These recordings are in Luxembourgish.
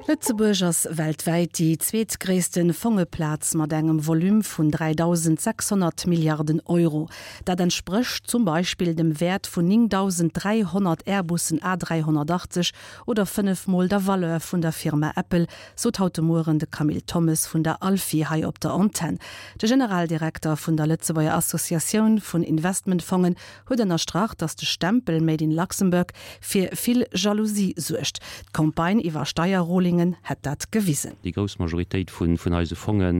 Lëtzebuerg ass weltwäit déi zweetgréisste Fongeplaz mat engem Volume vun 3.600 Milliarden Euro. Dat entsprécht zum Beispill dem Wäert vun 9.300 Airbussen A380 oder 5 Mol der Valeur vun der Firma Apple, sot haut de Mueren de Camille Thommes vun der ALFI hei op der Antenn. De Generaldirekter vun der Lëtzebuerger Associatioun vun Investmentfongen huet ënnerstrach, datt de Stempel Made in Luxembourg fir vill Jalousie suergt. D'Campagne iwwer Steierrulingen hätt dat gewisen. Déi grouss Majoritéit vun eise Fonge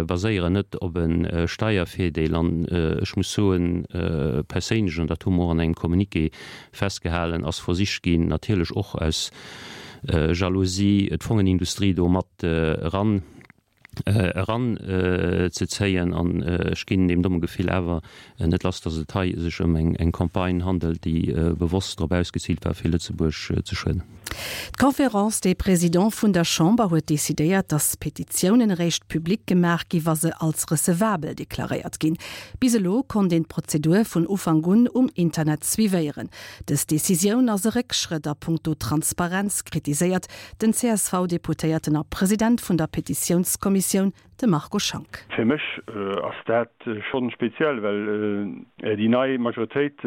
baséieren net op e Steiervirdeel. An ech muss soen, perséinlech, an dat hu mer och an engem Communiqué festgehalen, ass versicht ginn, natierlech och aus Jalousie, d'Fongenindustrie do mat eran eran ze zéien an ech ginn deem domme Gefill awer net lass, datt et hei sech ëm eng Campagne handelt, déi bewosst drop ausgeziilt war, fir Lëtzebuerg ze schueden. D'Conférence des Présidents vun der Chamber huet decidéiert, datt Petitiounen eréischt public gemaach gi wa se als recevabel deklaréiert ginn. Bis elo konnt een d'Prozedur vun Ufank un um Internet suivéieren. Dës Decisioun ass e Réckschrëtt a punkto Transparenz, kritiséiert Den CSV-Deputéierten a President vun der Petitiounskommissioun, de Marco Schank. Fir mech ass dat schonn speziell, well déi nei Majoritéit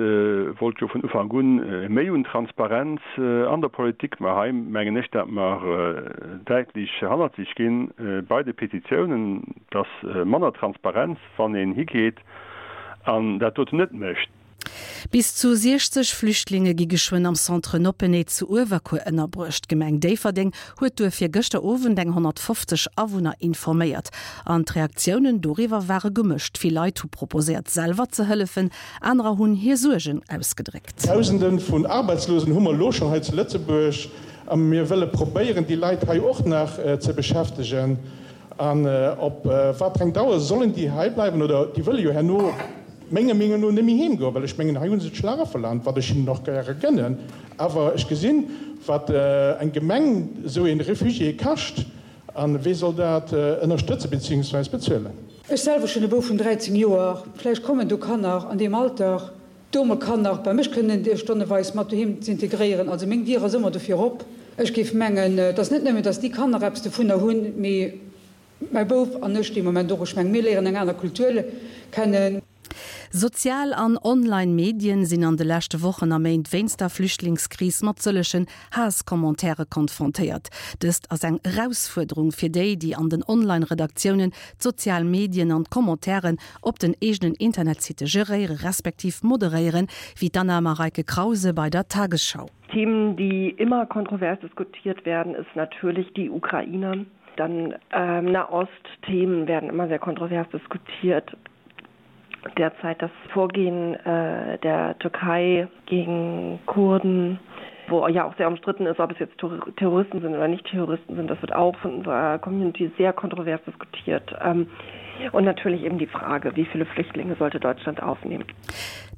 wollt jo vun Ufank un méi un Transparenz an der Politik. Mä hei mengen ech, dat mer däitlech hannerzeg ginn bei de Petitiounen. Et ass manner Transparenz, wann een higeet an dat doten net mécht. Bis zu 60 Flüchtlinge gi geschwënn am Centre Noppeney zu Uewerkuer ënnerbruecht. D'Gemeng Déifferdeng huet duerfir gëschter Owend eng 150 Awunner informéiert. An d'Reaktiounen doriwwer ware gemëscht. Vill Leit hu proposéiert selwer ze hëllefen, anerer hunn hir Suergen ausgedréckt. Dausende vun Arbeitslosen hu mer elo schonn hei zu Lëtzebuerg a mir wëlle probéieren, déi Leit hei och nach ze beschäftegen. An op wat fir eng Dauer sollen déi hei bleiwen? Oder déi wëlle jo herno menger Meenung no net méi heem goen, well ech mengen, hei hu se d'Schlarafeland, wat ech hinnen och gäre gënnen. Awer ech gesinn, wat eng Gemeng esou ee Refugié kascht, a wee soll dat ënnerstëtzen beziehungsweis bezuelen? Ech selwer hunn e Bouf vun 13 Joer, vläicht kommen do Kanner an deem Alter do mol Kanner bei mech kënnen stonneweis mat doheem z'integréieren. Also meng Dier ass ëmmer dofir op. Ech géif mengen, et ass net nëmmen, datt déi Kanner eppes dovunner hunn, mee mäi Bouf an ech dee Moment och. Ech mengen, mir léieren eng aner Kultur kennen. Sozial an online Medien sinn an de leschte Wochen a Méint wéinst der Flüchtlingskris mat sëllegen Haasscommentairen konfrontéiert. Dëst ass eng Erausfuerderung fir déi, déi an den Online-Redaktiounen d'sozial Medien an d'Commentairen op den eegenen Internetsitte geréiere respektiv moderéieren, wéi d'Anna Mareike Krause bei der Tagesschau. Themen, die immer kontrovers diskutiert werden, ist natürlich die Ukraine. Dann ähm, Nahostthemen werden immer sehr kontrovers diskutiert. Derzeit das Vorgehen äh, der Türkei gegen Kurden, wo ja auch sehr umstritten ist, ob es jetzt Terroristen sind oder nicht Terroristen sind, das wird auch von unserer Community sehr kontrovers diskutiert. Ähm, und natürlich eben die Frage, wie viele Flüchtlinge sollte Deutschland aufnehmen.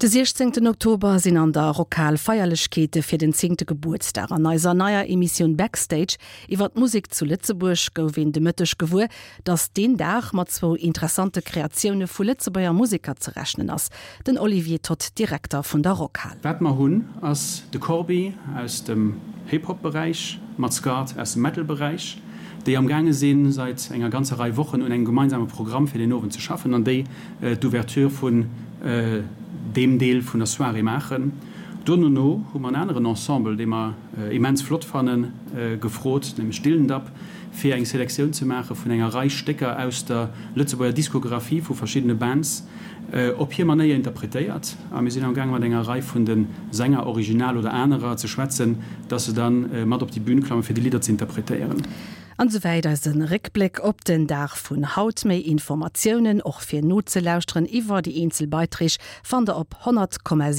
De 16 Oktober sinn an der Rockhal Feierlechkeete fir den zéngte Gebuertsdag. An eiser neier Emissioun Backstage iwwer d'Musek zu Lëtzebuerg gouf een de Mëtteg gewuer, datt deen Dag mat zwou interessante Kreatioune vu Lëtzebuerger Museker ze rechnen ass. Den Olivier Toth, Direkter vun der Rockhal. Wat mer hunn ass de Corbi aus dem Hip-Hop Beräich mat Scarred aus dem Metal Beräich, déi am gaange sinn seit enger ganzer Rei Wochen un engem gemeinsame Programm fir den Owend ze schaffen an déi d'Ouverture vun deem Deel vun der Soirée maachen. Donono hu mer en aneren Ensemble, dee mer immens flott fannen, gefrot, nämlech Dillendap, fir eng Selektioun ze maache vun enger Rei Stécker aus der Lëtzebuerger Diskographie vu verschiddene Bands, op hir Manéier interpretéiert. A mir sinn am gaange mat enger Rei vun de Sänger, original oder anerer, ze schwätzen, dass se da mat op déi Bühn klammen, fir déi Lidder ze interpretéieren. An esouwäit eise Réckbléck op den Dag vun haut. Méi Informatiounen, och fir nozelauschteren, iwwer déi eenzel Beiträg fannt der op 100,7.